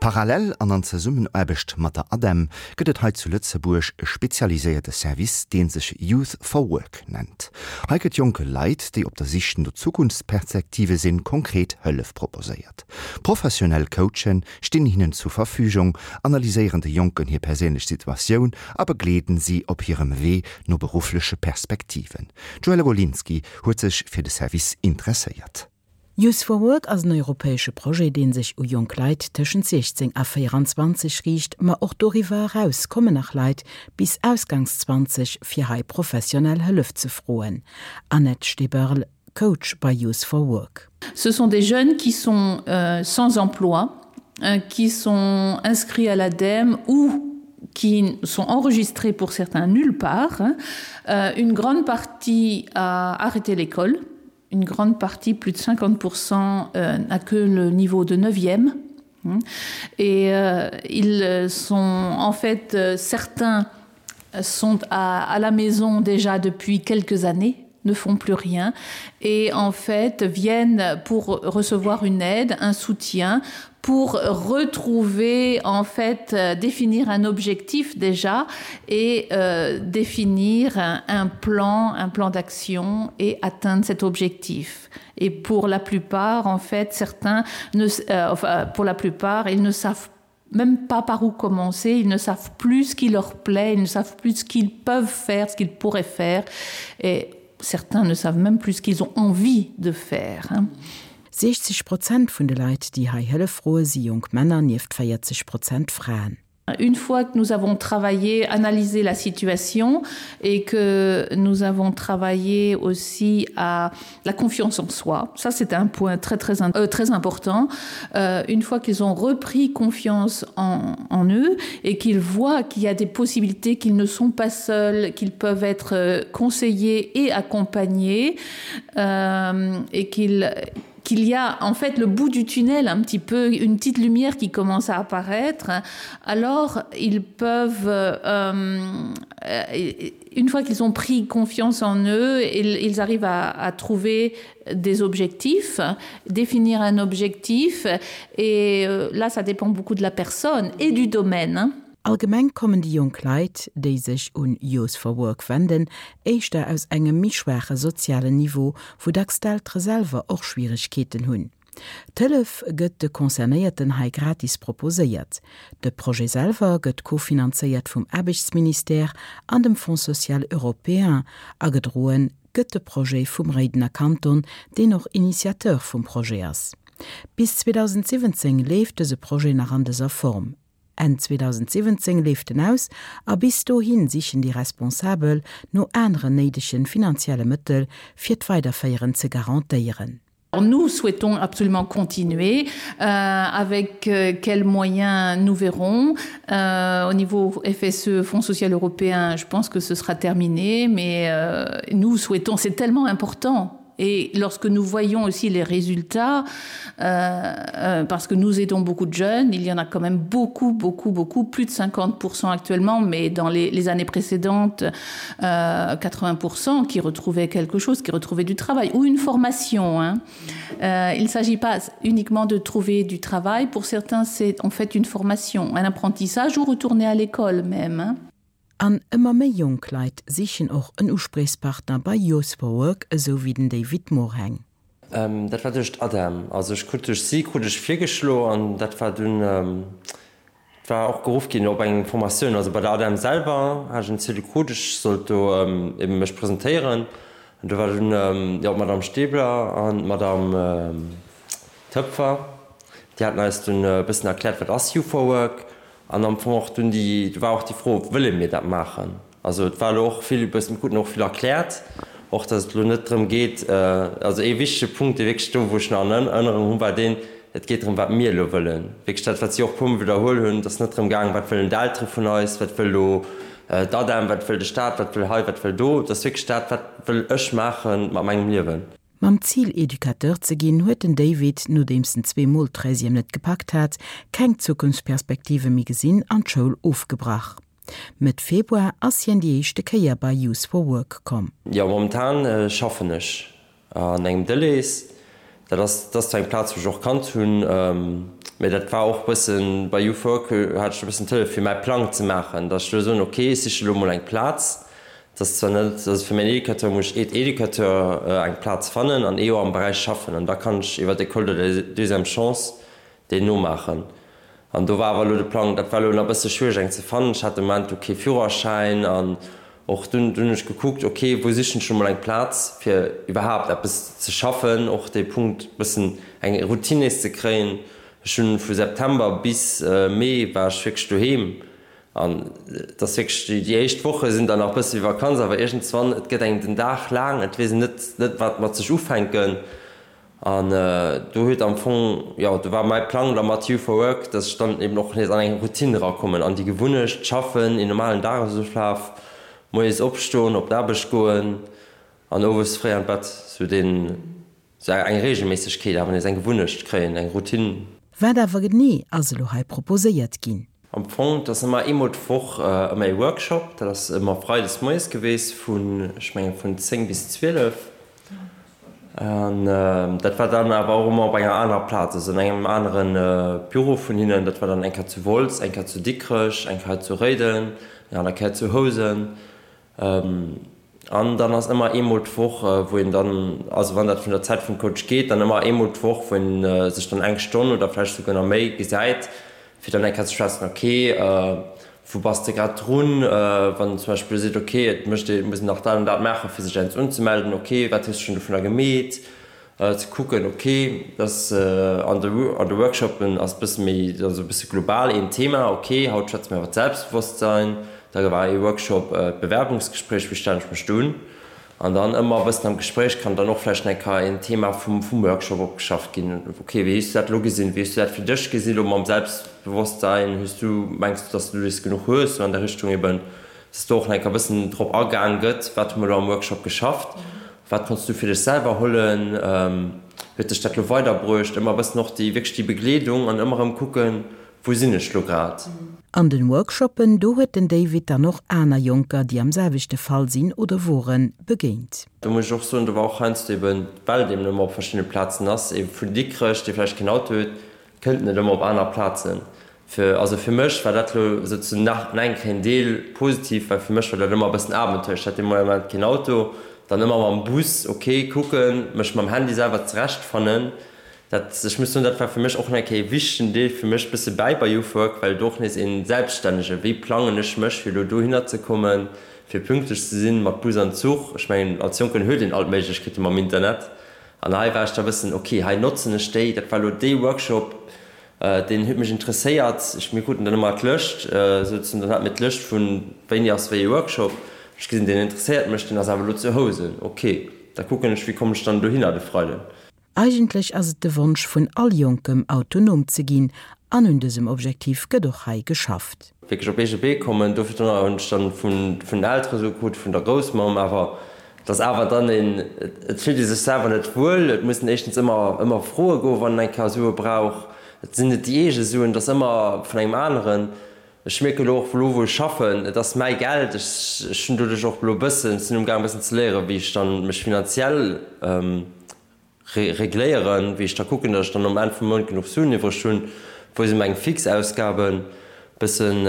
Parallel an an Zesummenaarbecht mat der ADEM gëtt et hei zu Lëtzebuerg e spezialiséierte Service, dee sech Youth for Work nennt. Hei gëtt jonke Leit, déi op der Sich no Zukunftspersektive sinn, konkret Hëllef proposéiert. Professionell Coachen stinn hinnen zur Verfügung, analyséieren de Jonken hir perséinlech Situatioun a begleeden si op hirem Wee no beruffleche Perspektiven. D'Joëlle Golinski huet sech fir de Service interesséiert. Youth for Work ass en europäesche Projet, dee sech u jonk Leit tëschent 16 a 24 riicht, ma och doriwwer eraus kommen nach Leit bis ausgangs 20 fir hei professionell Hëllef ze froen. Annette Steberl, Coach bei Youth for Work. Ce sont des jeunes qui sont euh, sans emploi, euh, qui sont inscrits à l'ADEME ou qui sont enregistrés pour certains nulle part. Euh, une grande partie a arrêté l'école une grande partie, plus de 50% euh, n'a que le niveau de 9e. Et euh, ils sont en fait euh, certains sont à, à la maison déjà depuis quelques années ne font plus rien et en fait viennent pour recevoir une aide, un soutien pour retrouver en fait euh, définir un objectif déjà et euh, définir un, un plan un plan d'action et atteindre cet objectif et pour la plupart en fait certains ne euh, enfin, pour la plupart ils ne savent même pas par où commencer ils ne savent plus ce qui leur plaît ils ne savent plus ce qu'ils peuvent faire ce qu'ils pourraient faire et certains ne savent même plus ce qu'ils ont envie de faire hein. 60 Prozent vun de Leit, déi hei Hëllef froe si jonk Männer, nieft 40 Prozent Fraen. Une fois que nous avons travaillé, analysé la situation et que nous avons travaillé aussi à la confiance en soi, ça c'est un point très très, euh, très important. Euh, une fois qu'ils ont repris confiance en, en eux et qu'ils voient qu'il y a des possibilités, qu'ils ne sont pas seuls, qu'ils peuvent être euh, conseillés et accompagnés euh, et qu'ils qu'il y a en fait le bout du tunnel un petit peu une petite lumière qui commence à apparaître alors ils peuvent euh, euh, une fois qu'ils ont pris confiance en eux ils, ils arrivent à, à trouver des objectifs définir un objectif et euh, là ça dépend beaucoup de la personne et du domaine Allgemeng kommen déi jonk Leit, déi sech un Youth for Work wenden, éischter aus engem méi schwaache sozialen Niveau, wou dacks d'Eltere selwer och Schwieregkeeten hunn. D'Hëllef gëtt de Concernéierten hei gratis proposéiert. De Projet selwer gëtt kofinanzéiert vum Aarbechtsministère an dem Fonds social européen a gedroen gëtt de Projet vum Réidener Kanton, deen och Initiateur vum Projet ass. Bis 2017 leeft dëse Projet nach an dëser Form. Enn 2017 leeft en aus a bis dohi sichen déi Responsabel no aneren néidegen finanzielle Mëttel, fir d'Weiderféieren ze garantéieren. Nous souhaitons absolument continuer euh, avec euh, quels moyens nous verrons euh, au niveau FSE Fonds social européen je pense que ce sera terminé mais euh, nous souhaitons c'est tellement important Et lorsque nous voyons aussi les résultats, euh, euh, parce que nous aidons beaucoup de jeunes, il y en a quand même beaucoup, beaucoup, beaucoup, plus de 50% actuellement, mais dans les, les années précédentes, euh, 80% qui retrouvaient quelque chose, qui retrouvaient du travail ou une formation. Hein. Euh, il ne s'agit pas uniquement de trouver du travail, pour certains c'est en fait une formation, un apprentissage ou retourner à l'école même. Hein. An ëmmer méi jonk Leit sichen och en Uspriechspartner bei Youth for Work, esou wéi den David Morheng. Dat war duerch d'ADEM. Also ech krut duerch si krut ech virgeschlo an dat war dunn, et war och geruff ginn op eng Formatioun. Also bei der ADEM selwer hat ech en Ziedel krut, ech sollt do ebe mech presentéieren. An do war dunn, jo, d'Madame Stebler an d'Madame Toepfer, déi haten eis dunn e bëssen erkläert, wat ass Youth for Work. An am Fong och dunn déi, do war och déi Fro, Wëlle mir dat maachen? Also et war elo och vill e bëssen, mir kruten och vill erkläert, och datt et elo net drëm geet, also ee wichtege Punkt, dee wierklech do, wou ech nach an Erënnerung hunn, war deen, et geet drëm, wat mir elo wëllen. Wierklech dat, wat si och e puermol widderhuel hunn, et ass net drëm gaangen, wat wëllen d'Eltere vun eis, wat wëll elo d'ADEM, wat wëll de Staat, wat wëll hei, wat wëll do. Et ass wierklech dat, wat wëll ech maache mat mengem Liewen. Mam Zil Educateur ze ginn, huet den David, nodeems en zweemol d'Treizième net gepackt hat, keng Zukunftsperspektive méi gesinn an d'Schoul ofgebrach. Mëtt Februar ass hien déi éischte Kéier bei Youth for Work komm. Jo, momentan schaffen ech an engem Delhaize. Dat ass, dat ass zwar eng Plaz, wou ech och kannt hunn. Mee dat war och bëssen, bei Youth Work hat ech e bëssen d'Hëllef fir mäi Plang ze maachen, datt ech elo soen, ok, ech siche elo mol eng Plaz, dat ass zwar net, also fir mäin Educateur muss ech Aide-Educateur eng Plaz fannen an ee Joer am Beräich schaffen an da kann ech iwwer d'École de la deuxième chance deen nomaachen. An do war awer elo de Plang, dat war elo nach e bësse schwiereg eng ze fannen, ech hat de Moment do kee Führerschäin an och dunn hunn ech gekuckt, ok, wou sichen ech elo mol eng Plaz fir iwwerhaapt eppes ze schaffen, och dee Punkt bëssen eng Routine nees ze kréien. Ech hunn vu September bis Mee war ech wierklech doheem an et ass wierklech, déi éischt Woche sinn dann nach e bësse wéi Vakanz, awer iergendswann, et gëtt engem den Dag laang, et weess een net net wat mat sech ufänken. An do huet am Fong, jo, do war mäi Plang da mat You for Work, dass ech dann eben och nees an eng Routine erakommen, an déi Gewunnecht, schaffen, een normalen Dagesoflaf, moies opstoen, op d'Aarbecht goen an owes fréi an d'Bett, sou deen, sou eng Reegelméissegkeet awer nees, eng Gewunnecht kréien, eng Routine. Wat awer genee ass elo hei proposéiert ginn? Am Fong, et ass ëmmer eemol d'Woch ëmmer ee Workshop. Dat ass ëmmer freides moies geweest vun, ech mengen, vun 10 bis 12. An dat war dann awer och ëmmer op enger anerer Plaz, also an engem anere Büro vun hinnen. Dat war dann eng Kéier zu Wolz, eng Kéier zu Dikrech, eng Kéier zu Réiden, eng aner Kéier zu Housen. An dann ass ëmmer eemol d'Woch, wou een dann, also wann dat vun der Zäit vum Coach geet, dann ëmmer eemol d'Woch, wou een sech dann eng Stonn oder vläicht souguer nach méi gesäit, fir dann eng Kéier ze schwätzen, ok, wou bass de grad drun? Wann en zum Beispill seet, ok, et mécht ee, muss een nach dat an dat maachen, fir sech eppes unzemelden, ok, wat hues de schonn dovunner gemeet? Ze kucken, ok, dass an de an de Workshoppen ass bësse méi, also e bësse global een Thema, ok, haut schwätze mir iwwer d'Selbstbewosstsein, da war ee Workshop d'Bewerbungsgespréich, wéi stellen ech mech do un? An dann ëmmer e bëssen am Gespréich kann dann och vläicht eng Kéier een Thema vum vum Workshop opgeschafft ginn, ok, wéi hues du dat elo gesinn, wéi hues du dat fir dech gesi lo mam Selbstbewosstsein, hues du, mengs du, dass du dees genuch hues, sou an der Richtung eben, dass do och nach eng Kéier e bëssen drop agaang gëtt, wat hu mer elo am Workshop geschafft. Wat konns du fir dech selwer hollen? Huet dech dat lo weiderbruecht? Ëmmer e bëssen och déi, wierklech déi Begleedung an ëmmer erëm kucken, wou sinn ech lo grad? An den Workshoppen, do huet den David dann och aner Jonker, déi am selwechte Fall sinn oder woren, begéint. Do muss ech och soen, do war och heiansdo eben, well et eben ëmmer op verschiddene Plazen ass, ee vun Dikrech, dee vläicht keen Auto huet, Kënnt net ëmmer op aner Plazen. Fir, also fir mech war dat lo souzesoen nach eng Kéier en Deel positiv, well fir mech war dat ëmmer e bëssen Abenteuer. Ech hat dee Moment keen Auto, dann ëmmer mam Bus, ok, kucken, mech mam Handy selwer zerechtfannen. Dat, ech muss soen, dat war fir mech och nach eng Kéier e wichtegen Deel fir mech bësse bäi bei Youth Work, well do och nees een Selbststännege, wéi plangen ech mech fir elo dohinner ze kommen, fir pünktlech ze sinn mat Bus an Zuch. Ech mengen, als Jonken huet een all d'Méiglechkeete mam Internet. An hei war ech da bëssen, ok, hei notzen ech déi, dat war elo dee Workshop, deen huet mech interesséiert. Ech, mir kruten dann ëmmer d'Lëscht, souzen, dann hate mir d'Lëscht vun wéini ass wéi ee Workshop. Ech gesinn, deen interesséiert mech, deen ass awer elo zu Housen, ok, da kucken ech, wéi kommen ech dann dohinner de Freiden. Eigentlech ass et de Wonsch vun all Jonkem, autonom ze ginn, an un dësem Objektiv gëtt och hei geschafft. Wierklech op eege Bee kommen. Dofir hunn ech dann vun den Eltere sou krut, vun der Groussmamm awer, Et ass awer dann een, et fillt ee sech selwer net wuel, et muss een éischtens ëmmer, ëmmer froe goen, wann een eng Kéier Sue brauch. Et sinn net déi eege Suen, et ass ëmmer vun engem aneren. Ech mierken elo och elo wou ech schaffen, et ass mäi Geld, ech, ech hunn doduerch och elo e bëssen, sinn umgaang e bëssen ze léieren, wéi ech dann mech finanziell regléieren, wéi ech da kucken, datt ech dann um Enn vum Mount genuch Suen iwwreg hunn, wou si meng fix Ausgaben, bëssen,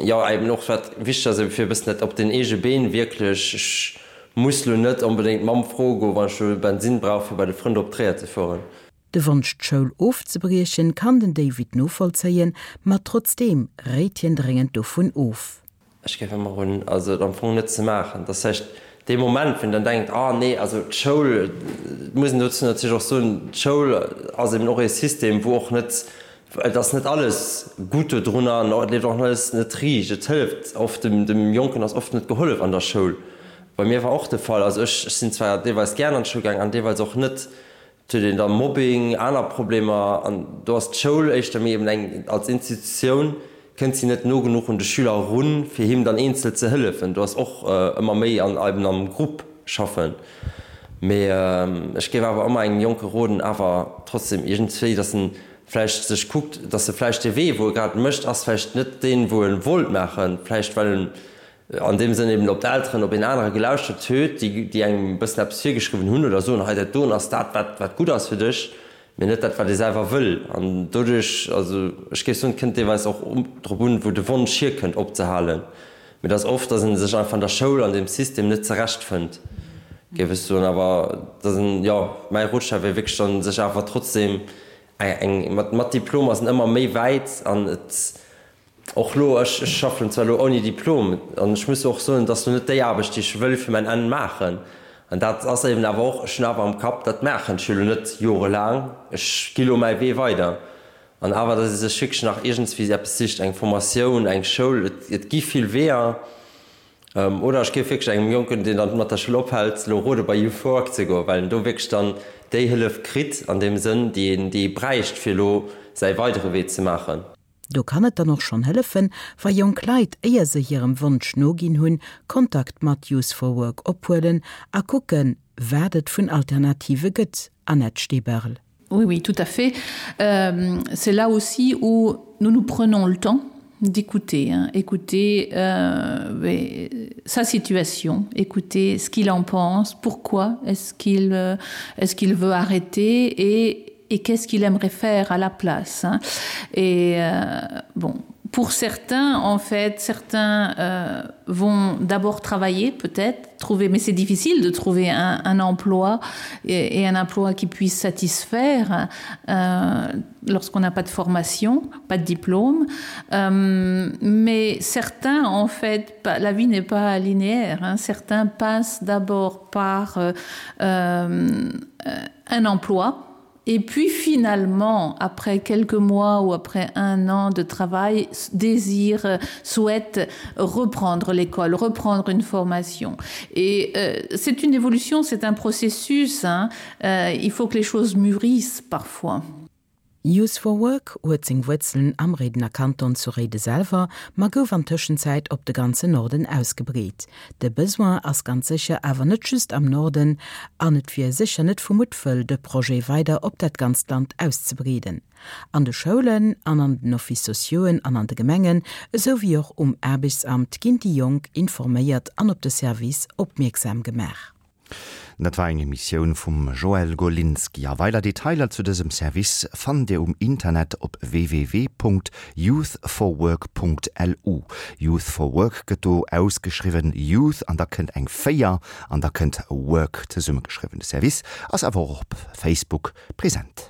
jo eben och wat wichteg ass, eben fir e bëssen dat op den eege Been wierklech, ech muss lo net onbedéngt d'Mamm froe goen, wann ech lo Bensinn brauch fir bei de Frënd op Tréier ze fueren. De Wonsch d'Schoul ofzebriechen kann den David novollzéien, ma trotzdeem réit hien dréngend dovun of. Ech géif ëmmer roden, also et am Fong net ze maachen. Dat ass vläicht dee Moment, wou een dann denkt, ah nee, also d'Schoul, et muss een dozou natierlech och soen, d'Schoul ass eben och ee System, wou och net, et ass net alles gutt dodrunner an et leeft och alles net riicht. Et hëlleft oft, dem, dem Jonken ass oft net gehollef an der Schoul. Bei mir war och de Fall, also ech, ech sinn zwar deelweis gären an d'Schoul gaang an deelweis och net, Et huet een da Mobbing, aner Problemer an do ass d'Schoul éischter méi eben eng, als Institutioun kënnt si net no genuch un de Schüler erun, fir him dann eenzel ze hëllefen. Do ass och ëmmer méi an eben am Grupp schaffen. Mee ech géif awer ëmmer engem Jonke roden, awer trotzdem iergendswéi, datt en vläicht sech kuckt, datt e vläicht dee Wee, wou e grad mécht, ass vläicht net deen, wou e wollt maachen, vläicht well en an deem Sënn eben op d'Elteren, op een anere gelauschtert huet, déi, déi engem e bëssen eppes virgeschriwwen hunn oder soen, hei dat doen ass dat, wat, wat gutt ass fir dech. Mee net dat, wat ee selwer wëll. An doduerch, also ech géif soen, et kënnt deelweis och drop un, wou de Wonsch hierkënnt opzehalen. Mee et ass oft, datt ee sech einfach an der Schoul, an deem System net zerechtfënnt, géif ech soen. Awer datt en, jo, mäi Rotschlag wier wierklech dann, sech awer trotzdem eng, mat, mat Diplom ass en ëmmer méi wäit an et, Och lo, ech schaffen zwar lo ouni Diplom an ech muss och soen, et ass lo net déi Aarbecht, déi ech wëll fir mäin Enn maachen. An dat ass eben awer och, ech hunn awer am Kapp, dat maachen ech jo lo net jorelaang, ech gi lo mäi Wee weider. An awer, datt ee sech wierklech nach iergendswéi eppes sicht, eng Formatioun, eng Schoul, et gi vill Weeër. Oder ech géif wierklech engem Jonken, deen dann mat der Schoul ophält, lo rode bei Youth for Work ze goen, well en do wierklech dann déi Hëllef kritt an deem Sënn, déi een, déi ee bräicht, fir lo säi weidere Wee ze maachen. Do kann et dann och schonn hëllefen, wa jonk Leit, éier se hirem Wonsch noginn hunn, Kontakt mat Youth for Work ophuelen a kucken, wat et vun Alternative gëtt. Annette Steberl. Oui, oui, tout à fait. Euh, c'est là aussi où nous nous prenons le temps d'écouter hein, écouter euh, mais, sa situation, écouter ce qu'il en pense, pourquoi est-ce qu'il euh, est-ce qu'il veut arrêter et et qu'est-ce qu'il aimerait faire à la place hein. et euh, bon pour certains en fait certains euh, vont d'abord travailler peut-être trouver mais c'est difficile de trouver un, un emploi et, et un emploi qui puisse satisfaire euh, lorsqu'on n'a pas de formation pas de diplôme euh, mais certains en fait pas, la vie n'est pas linéaire hein. certains passent d'abord par euh, euh, un emploi et puis finalement après quelques mois ou après un an de travail désire euh, souhaite reprendre l'école reprendre une formation et euh, c'est une évolution c'est un processus hein. euh, il faut que les choses mûrissent parfois Youth for Work huet seng Wuerzelen am Réidener Kanton zu Réide selwer, ma gouf an Tëschenzäit op de ganzen Norden ausgebreet. De Besoin ass ganz sécher awer net just am Norden an et wier sécher net vu Muttwëll, de Projet weider op dat ganzt Land auszebreeden. An de Schoulen an an den Office sociauxen an an de Gemengen, esou wéi och um Aarbechtsamt ginn déi Jonk informéiert an op de Service opmierksam gemaach. Dat war eng Emissioun vum Joël Golinski. A weider Detailer zu dësem Service fannt Dir um Internet op www.youthforwork.lu. Youth for Work gëtt do ausgeschriwwen, Youth an da kënnt eng 4 an da kënnt Work zesummegeschriwwen. De Service ass awer och op Facebook present.